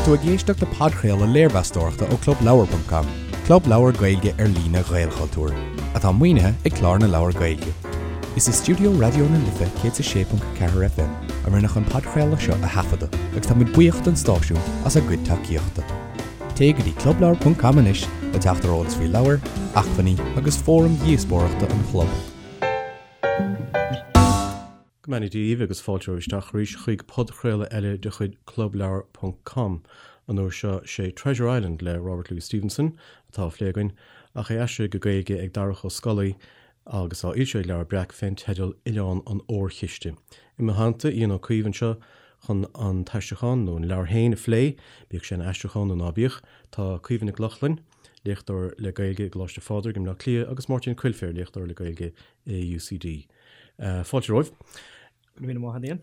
tú ag éisteacht le podchraoladh léirmheastóireachta ó ClubLeabhar.com, club leabhar Gaeilge ar líne Ghaelchultúir, atá maoinithe ag Clár na Leabhar Gaeilge. Is i stiúideo Raidió na Life 106.4 FM a rinneadh an podchraoladh seo a thaifeadadh agus tá muid buíoch don stáisiún as a gcuid tacaíochta. Téigh go dtí clubleabhar.com anois le teacht ar eolas faoi leabhair, acmhainní agus fóraim dhíospóireachta an chlub. Go mbeannaí Dia dhaoibh agus fáilte romhaibh isteach arís chuig podchraoladh eile de chuid clubleabhar ponc com. An uair seo sé Treasure Island le Robert Louis Stevenson atá á phlé againn, ach é aistrithe go Gaeilge ag Darach Ó Scolaí agus á fhoilsiú ag Leabhar Breac fén teideal Oileán an Órchiste. I mo theannta, Ian Ó Caoimh anseo chun an t-aistriúchán, nó an leabhar féin, a phlé, bíodh sé ina aistriúchán nó ná bíodh. Tá Caoimhe Nic Lochlainn, léachtóir le Gaeilge i gColáiste Phádraig i mBleá Cliath agus Máirtín Coilféir, léachtóir le Gaeilge i UCD. Fáilte romhaibh. Go raibh míle maith agat, Ian.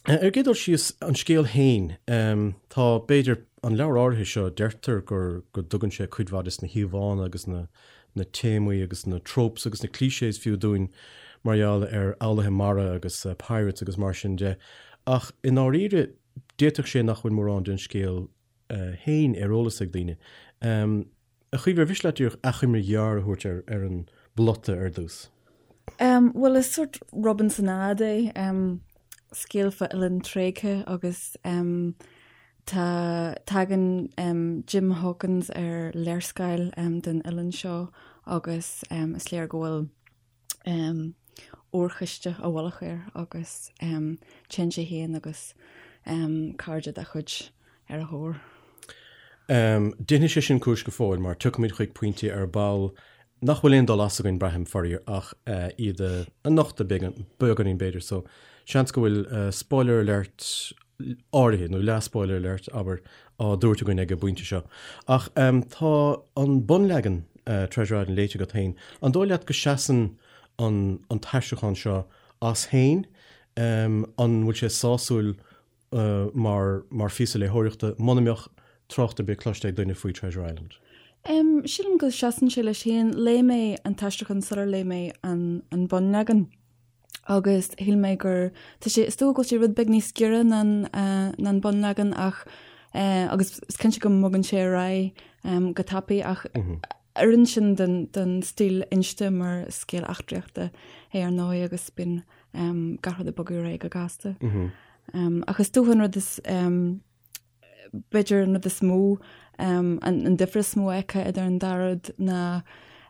Ar an gcéad dul síos, an scéal féin, tá, b'fhéidir, an leabhar áirithe seo, deirtear gur, go dtugann sé cuid mhaith des na híomhánna agus na, na téamaí agus na tropes agus na clichés fiú dúinn mar gheall ar fhoghlaithe mara agus pirates agus mar sin de. Ach i ndáiríre, d'fhéadfadh sé nach bhfuil mórán den scéal féin ar eolas ag daoine. A Chaoimhe, ar mhiste leat díreach achoimre ghearr a thabhairt ar ar an bplota ar dtús? Bhuel, is sórt Robinsonade é, scéal fá oileán tréigthe agus tá, tagann Jim Hawkins ar léarscáil den oileán seo agus is léir go bhfuil órchiste i bhfolach air agus téann sé féin agus cairde dá chuid ar a thóir. Déanfaidh sé sin cúis go fóill mar tiocfaimid chuig pointí ar ball nach bhfuil aon dul as againn, braithim, faraor, ach iad a nochtadh beagáinín b'fhéidir. So, seans go bhfuil spoiler alert áirithe, nó leath-spoiler alert, abair, á dtabhairt againn ag an bpointe seo. Ach tá an bunleagan Treasure Island léite agat féin. An dóigh leat go seasann an an t-aistriúchán seo as féin? An bhfuil sé sásúil mar mar phíosa léitheoireachta muna mbeadh trácht ar bith cloiste ag duine faoi Treasure Island? Sílim go seasann sé leis féin. Léigh mé an t-aistriúchán sular léigh mé an an bunleagan. agus shíl mé gur, tá sé, is dócha go bhfuil sé rud beag níos giorra ná an ná an bunleagan ach agus is cinnte go mbogann sé ar aghaidh go tapaidh ach oireann sin don don stíl inste mar scéal eachtraíochta é ar ndóigh agus bíonn gach rud ag bogadh ar aghaidh go gasta. Ach is dócha an rud is B'fhéidir an rud is mó, an difear is mó a fheicfeá idir an dá rud ná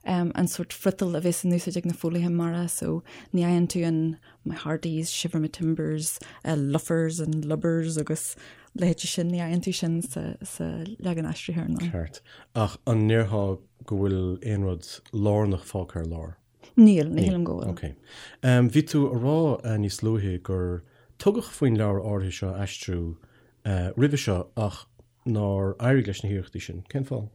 an sórt friotal a bheas in úsáid ag na foghlaithe mara so ní fhaigheann tú an my hearties, shiver my timbers, luffers and lubbers agus leithéidí sin, ní fhaigheann tú sin sa leagan aistrithe ar ndóigh. Ceart. Ach an ndéarfá go bhfuil aon rud lárnach fágtha ar lár? Níl, ní shílim go bhfuil. Ok. Bhí tú a rá níos luaithe gur tugadh faoin leabhar áirithe seo a aistriú roimhe seo ach nár éirigh leis na hiarrachtaí sin. Cén fáth?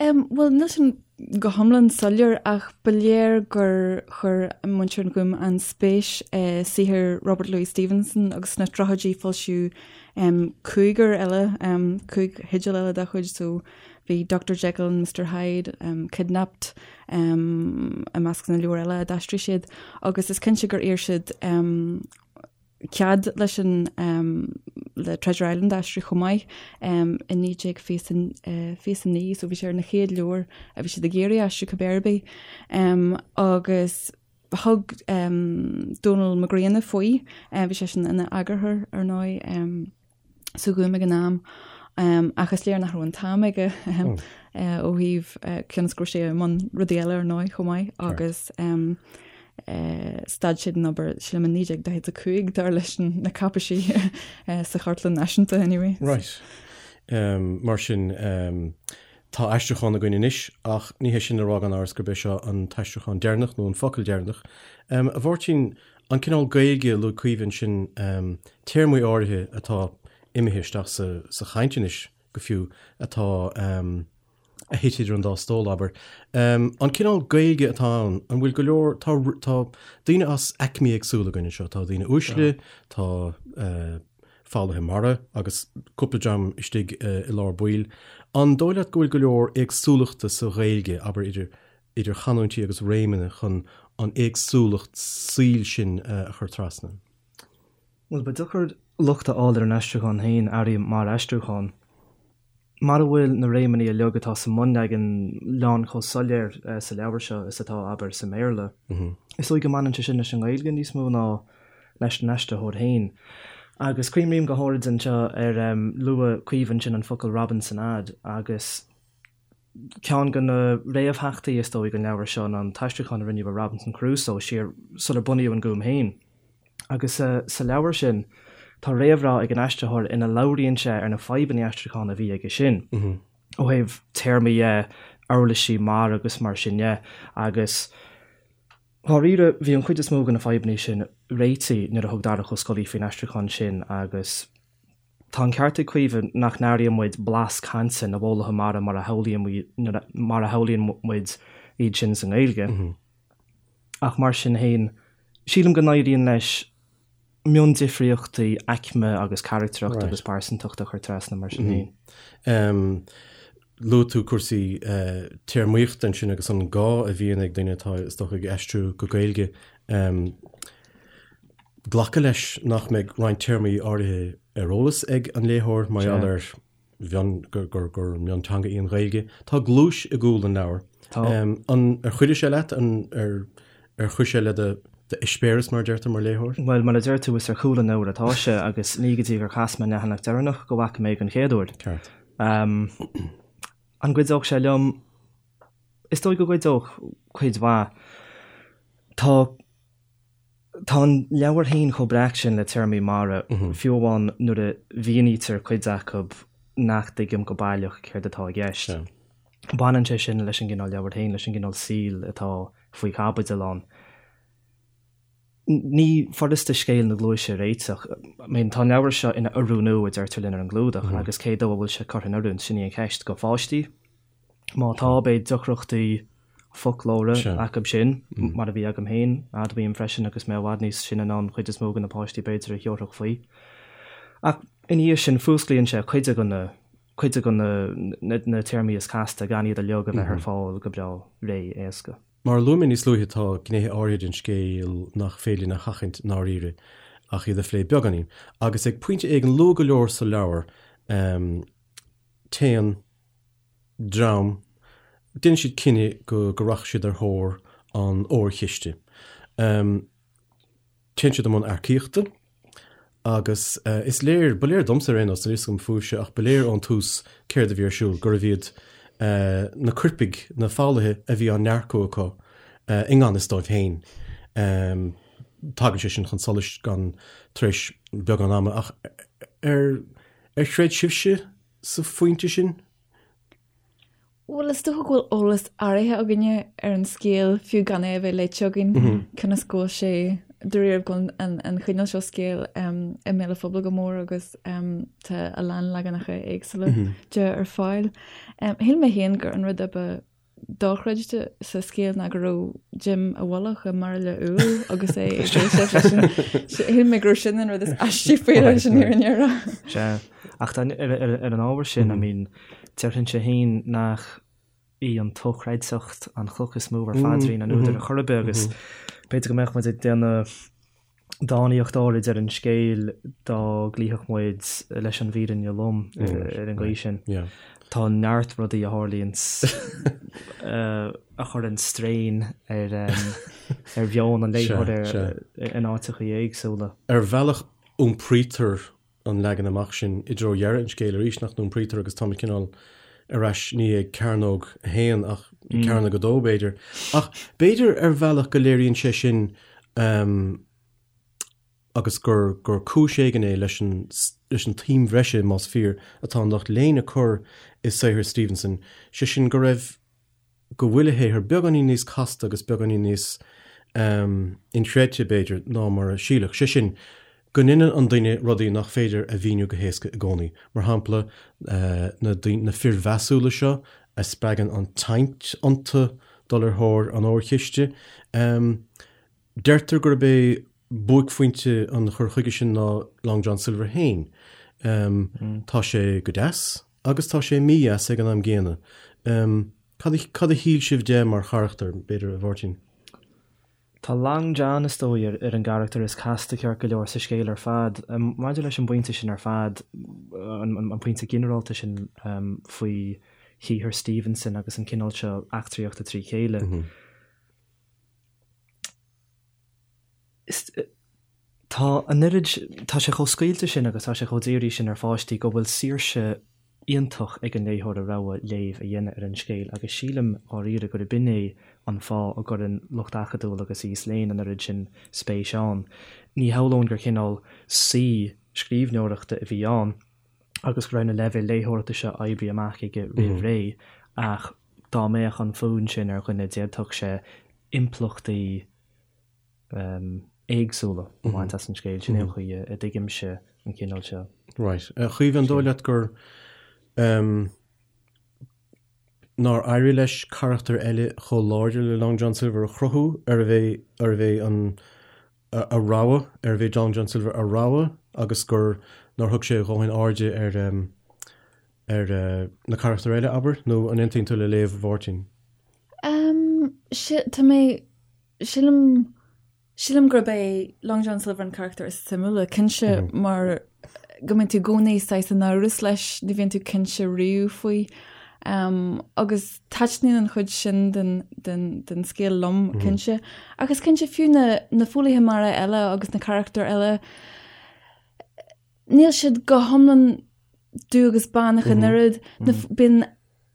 Bhuel, níl sin go hiomlán soiléir ach ba léir gur chuir muintir an Ghúim an-spéis i saothar Robert Louis Stevenson agus sna tríochaidí foilsíodh cúigear eile, 5 theideal eile dá chuid so bhí Doctor Jekyll and Mister Hyde, Kidnapped, i measc na leabhar eile a d'aistrigh siad agus is cinnte gur iarr siad cead leis an le Treasure Island a aistriú chomh maith i 1929 so bhí sé ar na chéad leabhair a bhí siad ag iarraidh aistriú cibé ar bith agus thug Dónall Mac Grianna faoi, bhí seisean ina eagarthóir ar ndóigh. sa Ghúm ag an am ach is léir nach raibh an t-am aige ó thaobh cionn is go raibh sé i mbun rudaí eile ar ndóigh chomh maith agus stad siad den obair sílim i 1945 dar leis na cáipéisí sa Chartlann Náisiúnta anyway. Right. Mar sin tá aistriúchán againn anois ach ní hé sin le rá gan amhras gurb é seo an t-aistriúchán deireanach nó an focal deireanach. A Mháirtín, An cineál Gaeilge a luaigh Caoimhe ansin, téarmaí áirithe atá imithe isteach sa chaint anois go fiú, atá a thit idir an dá stól, abair. An cineál Gaeilge atá ann, an bhfuil go leor, tá tá daoine as aicmí éagsúla againn anseo, tá daoine uaisle, tá foghlaithe mara agus cúpla dream istigh i lár baill. An dóigh leat go bhfuil go leor éagsúlachta sa Ghaeilge, abair, idir idir chanúintí agus réimeanna chun an éagsúlacht saoil sin a chur trasna. Bhuel, ba deacair locht a fháil ar an aistriúchán féin, airím, mar aistriúchán. Mara bhfuil na réimeanna uilig atá sa mbunleagan lán chomh soiléir sa leabhar seo is atá, abair, sa mBéarla, is dóigh go mbaineann sé sin leis an nGaeilge níos mó ná leis an aistritheoir féin. Agus cuimrím go háirid anseo ar luaigh Caoimhe ansin an focal Robinsonade agus ceann de na réamhtheachtaí is dóigh don leabhar seo ná an t-aistriúchán a rinneadh ar Robinson Crusoe siar sular bunaíodh an Gúm féin. Agus sa leabhar sin, tá réamhrá ag an aistritheoir ina labhraíonn sé ar na fadhbanna aistriúcháin a bhí aige sin, ó thaobh téarmaí dhe, uirlisí mara agus mar sin dhe. Agus dháiríre, bhí an chuid is mó de na fadhbanna sin réitithe nuair a thug Darach Ó Scolaí faoin aistriúchán sin agus tá an ceart ag Caoimhe nach n-airíonn muid blas cainte na bhfoghlaithe mara mar a shamhlaíonn muid iad sin sa nGaeilge. Ach mar sin féin, sílim go n-éiríonn leis miondifríochtaí aicme agus carachtrachta agus pearsantachta a chur trasna mar sin féin. Luaigh tú cúrsaí téarmaíochta ansin agus an gá a bhíonn ag duine atá, is dócha, ag aistriú go Gaeilge glacadh leis nach mbeidh roinnt téarmaí áirithe ar eolas ag an léitheoir mar gheall ar mhion, gur, gur, gur mionteanga í an Ghaeilge. Tá gluais i gcúl an leabhair. Tá. An, ar chuidigh sé leat? An, ar, ar chuir sé le do, d'eispéireas, mar a deirtear, mar léitheoir? Bhuel, mar a deir tú, is ar chúl an leabhair atá sé agus ní go dtí gur chas mé an leathanach deireanach go bhfaca mé den chéad uair. Ceart. An gcuideodh sé liom? Is dóigh go gcuideodh cuid mhaith. Tá. Tá an leabhar féin chomh breac sin le téarmaí mara, fiú amháin nuair a mhínítear cuid acu nach dtuigim go baileach céard atá i gceist. Baineann sé sin leis an gcineál leabhair féin, leis an gcineál saoil atá faoi chaibidil ann. Ní furasta scéal na gluaise a réiteach. I mean, tá an leabhar seo ina oiriúnú, a deirtear linn ar an gclúdach, agus cé dó a bhfuil sé curtha in oiriúint, sin í an cheist. Do pháistí? Má tá, beidh deacrachtaí foclóra acu sin, mar a bhí agam féin, admhaím freisin, agus mé i bhfad níos sine ná an chuid is mó de na páistí b'fhéidir a thiúrfadh faoi. Ach ina dhiaidh sin, fuasclaíonn sé cuid de na, cuid de na, na téarmaí is casta gan iad uilig a bheith ar fáil go breá réidh éasca. Mar a luaigh mé níos luaithe, tá gnéithe áirithe den scéal nach féidir linn a sheachaint i ndáiríre ach iad a phlé beagáinín. Agus ag pointe éigin luath go leor sa leabhar, téann dream, déanann siad cinneadh go go rachaidh siad ar thóir an órchiste. Téann siad i mbun earcaíochta agus is léir, ba léir domsa ar aon nós, níl a fhios agam fúibhse, ach ba léir ón tús céard a bhí ar siúl, gurbh iad na coirpigh, na foghlaithe a bhí á n-earcú acu i ngan fhios dóibh féin. Tagann sé sin chun solais gan tar éis beagán ama ach ar ar chreid sibhse sa phointe sin? Bhuel, is dócha go bhfuil eolas áirithe againne ar an scéal, fiú gan é a bheith léite againn, cionn is go bhfuil sé, dáiríre, go bhfuil an chineál seo scéil i mbéal an phobail go mór agus tá a lán leaganacha éagsúla de ar fáil. Shíl mé féin gur an rud a ba dochreidte sa scéal ná go raibh Jim i bhfolach i mbairille úll agus é ag éisteacht leis an Shíl mé go raibh sin an rud is aistí faoi leis an fhírinne a rá. Sea, ach ar an ábhar sin, I mean, déarfainnse féin nach í an tsochreidteacht an chloch is mó ar phaidrín an údair ar chor ar bith agus b'fhéidir go mbeadh muid ag déanamh dánaíocht áirid ar an scéal dá gcloífeadh muid leis an bhfírinne lom ar an gcaoi sin. Tá neart rudaí a tharlaíonn a chuireann strain ar ar mheon an léitheora in áiteachaí éagsúla. Ar bhealach iompraítear an leagan amach sin i dtreo dheireadh an scéil arís, nach n-iompraítear agus táimid cineál ar ais ní ag cearnóg a haon ach ag cearnóg a dó b'fhéidir. Ach b'fhéidir ar bhealach go léiríonn sé sin agus gur gur cúis éigin é leis an leis an tsuim bhreise, más fíor, atá an lucht léinn ag cur i saothar Stevenson, sé sin go raibh go bhfuil a shaothar beagáinín níos casta agus beagáinín níos inchreidte, b'fhéidir, ná mar a síleadh. Sé sin, go ndéanann an duine rudaí nach féidir a mhíniú go héasca i gcónaí. Mar shampla, na na fir mheasúla seo a spreagann an tsaint iontu dul ar thóir an órchiste. Deirtear gurb é buaicphointe an chur chuige sin ná Long John Silver féin. Tá sé go deas agus tá sé mídheas ag an am gcéanna. Cad a, cad a shíl sibh de mar charachtar, b'fhéidir, a Mháirtín? Tá Long John, is dóigh, ar an gcarachtar is casta ceart go leor sa scéal ar fad. Maidir leis an bpointe sin ar fad, an pointe ginearálta sin faoi shaothar Stevenson agus an cineál seo eachtraíochta trí chéile, tá an oiread, tá sé chomh scaoilte sin agus tá sé chomh dírithe sin ar pháistí go bhfuil saoirse iontach ag an léitheoir a rogha léamh a dhéanamh ar an scéal agus sílim dháiríre gurb in é an fáth a gcuireann lucht acadúil agus aos léinn an oiread sin spéis ann. Ní shamhlóinn gur cineál saoi scríbhneoireachta a bhí ann agus go raibh na leibhéil léitheoireachta seo oibrithe amach aige roimh ré ach dá mbeadh an fonn sin ar dhuine d'fhéadfadh sé impleachtaí éagsúla a bhaint as an scéal. Sin é an chaoi a dtuigimse an cineál seo. Right. A Chaoimhe, an dóigh leat gur nár éirigh leis carachtar eile chomh láidir le Long John Silver a chruthú, arbh é, arbh é an a rogha, arbh é Long John Silver a rogha agus gur nár thug sé a dhóthain airde ar ar na carachtair eile, abair, nó an aontaíonn tú le léamh Mháirtín? Tá mé Sílim, sílim gurb é Long John Silver an carachtar is suimiúla, cinnte, mar go mbíonn tú i gcónaí saghas in amhras leis, ní bhíonn tú cinnte riamh faoi. Um, agus taitníonn an chuid sin den, den, den scéal liom, cinnte. Ach is cinnte fiú na, na foghlaithe mara eile agus na carachtair eile, níl siad go hiomlán dubh agus bán ach an oiread. Na, bíonn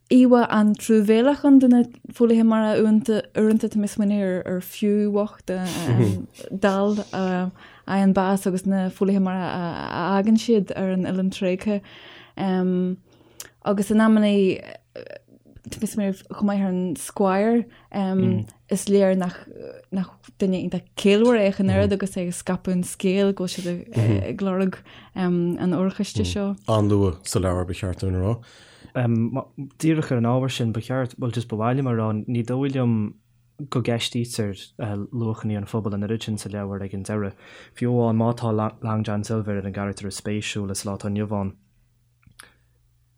íomhá an-truamhéalach ann de na foghlaithe mara uaireanta, uaireanta tá mé ag smaoineamh ar, ar Few bhocht dall a fhaigheann bás agus na foghlaithe mara a, a fhágann siad ar an oileán tréigthe. Agus in amannaí tá mé ag smaoineamh chomh maith ar an Squire, is léir nach, nach duine iontach ciallmhar é ach an oiread agus é ag scaipeadh an scéil go bhfuil siad ag, ag lorg an órchiste seo. An-luath sa leabhar ba cheart dúinn a rá. Díreach ar an ábhar sin, ba cheart, bhuel just ba mhaith liom a rá, ní dóigh liom go gceistítear luachanna an phobail an oiread sin sa leabhar ag an deireadh. Fiú amháin má tá Long John Silver ar an gcarachtar is spéisiúla sa lá atá inniu ann,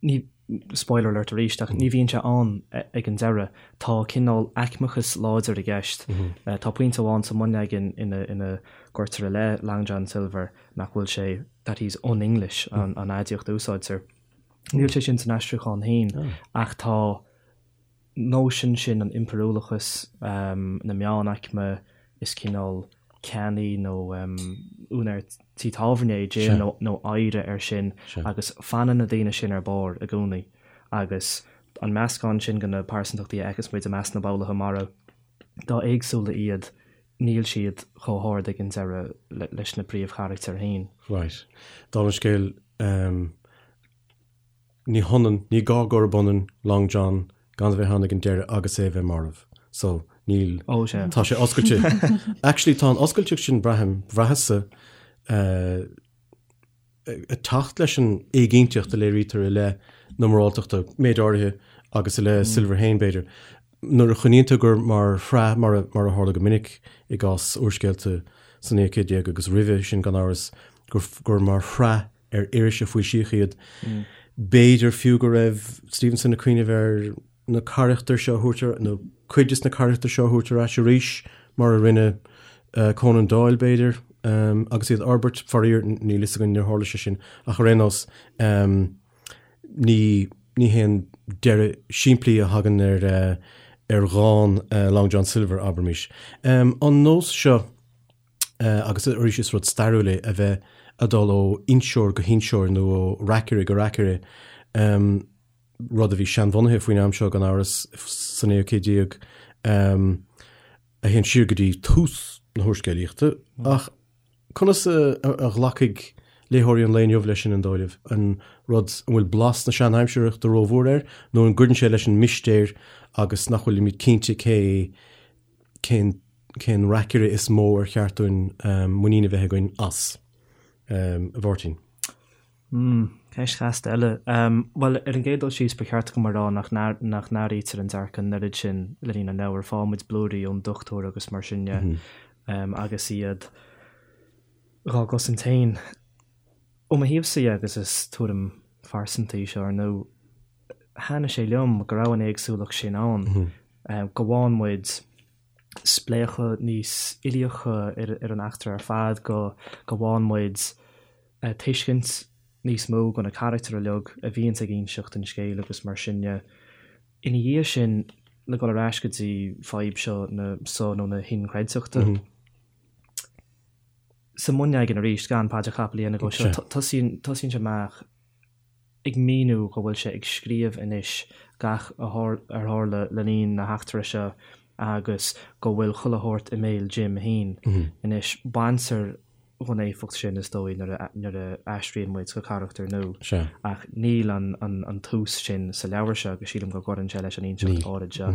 ní, spoiler alert arís, ach ní bhíonn sé ann ag an deireadh. Tá cineál aicmeachas láidir i gceist. Tá pointe amháin sa mbunleagan ina gcuirtear i leith Long John Silver nach bhfuil sé, that he's un-English an aidiacht a úsáidtear. Níl sé sin san aistriúchán féin ach tá nóisean sin an impiriúlachas, na meánaicme, is cineál ceannaí nó úinéir tí tábhairne é Jim nó oidhre air sin agus fanann na daoine sin ar barr i gcónaí agus an meascán sin de na pearsantachtaí a fheiceas muid i measc na bhfoghlaithe mara, dá éagsúla iad, níl siad chomh hard ag an deireadh leis na príomhcharachtair féin. Right. Dála an scéil, ní hionann, ní gá gurb ionann Long John gan a bheith ann ag an deireadh agus é a bheith marbh. So, níl, Ó, sea. tá sé oscailte. Actually, tá an oscailteacht sin, braithim, bhraitheas-sa, ag teacht leis an éiginnteacht a léirítear i leith na moráltachta, méid áirithe, agus i leith Silver féin, b'fhéidir. Nuair a choinníonn tú gur mar shraith, mar a, mar a tharla go minic i gcás úrscéalta sa naoú céad déag agus roimhe sin gan amhras, gur, gur mar shraith ar iris a foilsíodh iad. B'fhéidir fiú go raibh Stevenson ag cuimhneamh ar na carachtair seo a thabhairt ar, nó cuid des na carachtair seo a thabhairt ar ais arís, mar a rinne Conan Doyle, b'fhéidir, agus iad a fhorbairt. Faraor, níl fhios againn, níor tharla sé sin, ach ar aon nós, ní, ní haon deireadh simplí a thagann ar, ar dhán Long John Silver, abraimis. An nós seo, agus arís is rud stairiúil é a bheith ag dul ó inseoir go hinseoir nó ó reacaire go reacaire, rud a bhí seanbhunaithe faoin am seo gan amhras sa naoú céad déag, a théann siar go dtí tús na húrscéalaíochta. Ach conas a ghlacfaidh léitheoirí an lae inniu leis sin, an dóigh libh? An rud, an bhfuil blas na seanaimsireachta rómhór air nó an gcuireann sé leis an mistéir agus nach bhfuilimid cinnte cé cén cén reacaire is mó ar cheart dúinn muinín a bheith againn as? A Mháirtín. Hmm, ceist chasta eile. Bhuel, ar an gcéad dul síos, ba cheart dom a rá nach nach n-athraítear an dearcadh an oiread sin le linn an leabhair. Faigheann muid blúirí ón dochtúir agus mar sin de, agus iad dhá gcosaint féin. Ó mo thaobhsa dhe, agus is tuairim phearsanta í seo ar ndóigh, thaitnigh sé liom go raibh an éagsúlacht sin ann, go bhfaigheann muid. spléachadh níos uilíocha ar an eachtra ar fad, go bhfaigheann muid tuiscint níos mó go na carachtair uilig a bhíonns ag inseacht an scéil agus mar sin de. Ina dhiaidh sin, le dhul ar ais go dtí fadhb seo na so nó na hinchreidteachta, sa mbunleagan arís, gan paidreacha capaill a dhéanamh dhó seo, tosaíonn tosaíonn sé amach ag míniú go bhfuil sé ag scríobh anois gach a ar tharla le linn na heachtra seo agus go bhfuil chuile shórt i mbéal Jim féin. Anois, baintear dhon éifeacht sin, is dóigh, nuair a nuair a aistríonn muid go carachtar nua. Ach níl an an an tús sin sa leabhar seo agus sílim go gcuireann sé leis an inseacht áirid seo.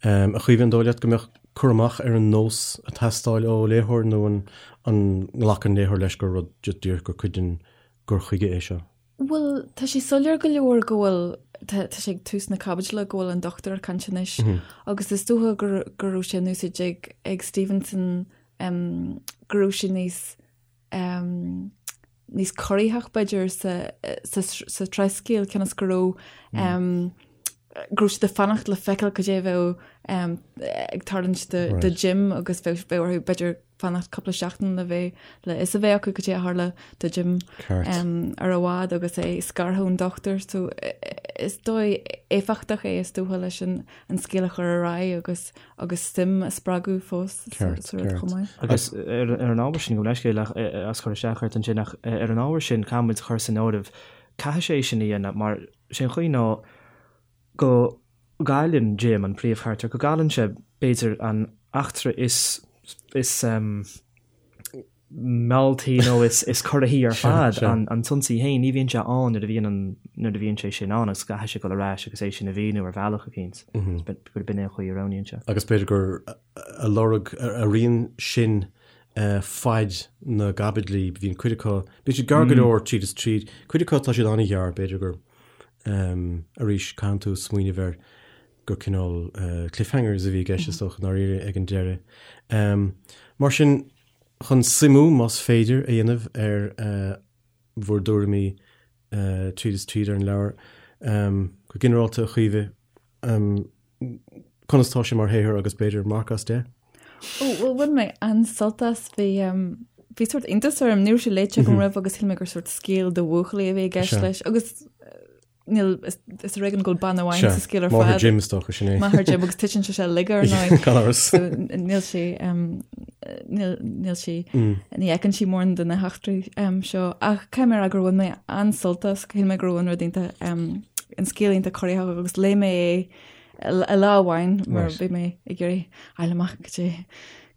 A Chaoimhe, an dóigh leat go mbeadh cur amach ar an nós ag teastáil ó léitheoir nó an an nglacann léitheoir leis gur rud díreach gur cuid den gcur chuige é seo? Bhuel, tá sé soiléir go leor go bhfuil, tá sé ag tús na caibidle, go bhfuil an dochtúir ag caint anois agus is dócha go go raibh sé in úsáid ag ag Stevenson go raibh sé níos níos corraitheach b'fhéidir sa sa sa tsraithscéal cionn is go raibh go raibh siad ag fanacht le feiceáil cad é a bheadh ag tarlúint do Jim agus bheadh orthu b'fhéidir fanacht cúpla seachtain le bheith le fhios a bheith acu cad é a tharla do Jim ar an bhád agus é scartha ón dochtúir. So is dóigh éifeachtach é is dócha leis an scéal a chur ar aghaidh agus agus suim a spreagadh fós sa rud chomh maith. Agus ar an ábhar sin, gabh mo leithscéal as cur isteach ort ansin ach ar an ábhar sin caithfidh muid a chur san áireamh, caithfidh sé sin a dhéanamh mar sé an chaoi ná go gcailleann Jim, an príomhcharachtar, go gcailleann sé, b'fhéidir, an eachtra is, is mealltaí nó is, is corraithí ar fad, an, an t-ionsaí féin, ní bhíonn sé ann nuair a bhíonn an, nuair a bhíonn sé sin ann agus caithfidh sé dul ar ais agus é sin a mhíniú ar bhealach eicínt. Gurb in é an chaoi a roghnaíonn sé. Agus b'fhéidir gur a lorg, a rian sin faid na gcaibidlí, bíonn cuid acu, bíonn siad gearr go leor tríd is tríd, cuid acu tá siad an-ghearr, b'fhéidir gur Arís, caitheann tú smaoineamh air gur cineál cliffhangers a bhí i gceist is dócha, i ndáiríre, ag an deireadh. Mar sin, chun suimiú, más féidir, a dhéanamh ar bhur dtuairimí tríd is tríd ar an leabhar, go ginearálta, a Chaoimhe, conas tá sé mar shaothar agus b'fhéidir marc as 10? Ó, bhuel, bhain mé an-sult as. Bhí, bhí sórt iontas orm, ní raibh sé léite agam roimh agus shíl mé gur sórt scéal do bhuachaillí a bhí i gceist leis. Agus níl, is ar éigean go bhfuil bean amháin sa scéal ar fad. Máthair Jim is dócha, sin é. Máthair Jim agus titeann sé sé uilig ar ndóigh. Gan amhras. So, níl sí, níl, níl sí, ní fheiceann sí mórán de na heachtraí seo. Ach caithfidh mé a rá gur bhain mé an-sult as, shíl mé go raibh an rud iontach, an scéal iontach corraitheach agus léigh mé é i lá amháin mar bhí mé ag iarraidh fháil amach cad é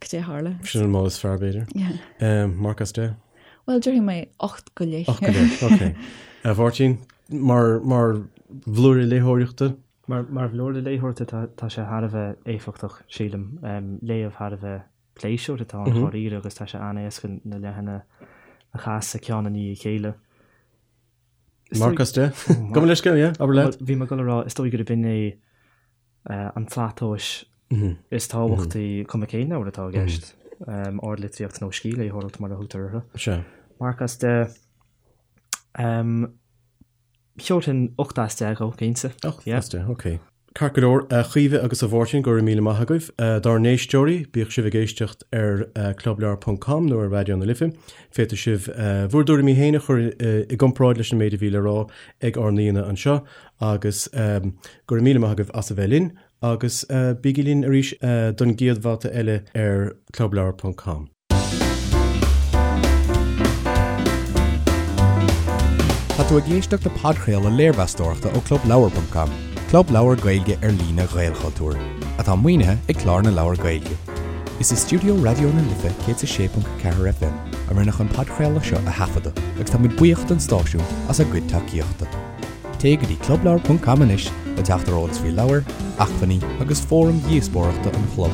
cad é a tharla. Sin an modh is fearr b'fhéidir. Yeah. Marc as 10? Bhuel, déarfaidh mé 8 go leith. 8 go leith, ok. A Mháirtín, mar mar bhlúire léitheoireachta? Mar mar bhlúire léitheoireachta tá tá sé thar a bheith éifeachtach, sílim. Léamh thar a bheith pléisiúrtha atá ann dháiríre agus tá sé an-éasca na leathanaigh a chasadh ceann i ndiaidh a chéile. Marc as 10? Gabh mo leithscéal, yeah, abair leat. Bhí mé ag dul a rá, is dóigh gurb in é an tslat tomhais is tábhachtaí, cuma cén leabhar atá i gceist, ardlitríocht nó scíthléitheoireacht mar a thugtar orthu. Sea. Marc as 10. Thabharfainn 8 as 10 dhó, cinnte. 8 as 10, ok. Ceart go leor, a Chaoimhe agus a Mháirtín, go raibh míle maith agaibh. Dár n-éisteoirí, bíodh sibh ag éisteacht ar clubleabhar ponc com nó ar Raidió na Life, féadfaidh sibh bhur dtuairimí féin a chur i gcomparáid leis an méid a bhí le rá ag ár n-aíonna anseo agus go raibh míle maith agaibh as a bheith linn agus bígí linn arís don gcéad bhabhta eile ar clubleabhar ponc com. Tá tú ag éisteacht le podchraoladh léirmheastóireachta ó ClubLeabhar.com, club leabhar Gaeilge ar líne Ghaelchultúir, atá maoinithe ag Clár na Leabhar Gaeilge. Is i stiúideo Raidió na Life 106.4 FM a rinneadh an podchraoladh seo a thaifeadadh agus tá muid buíoch don stáisiún as a gcuid tacaíochta. Téigh go dtí clubleabhar.com anois le teacht ar eolas faoi leabhair, acmhainní agus fóraim dhíospóireachta an chlub.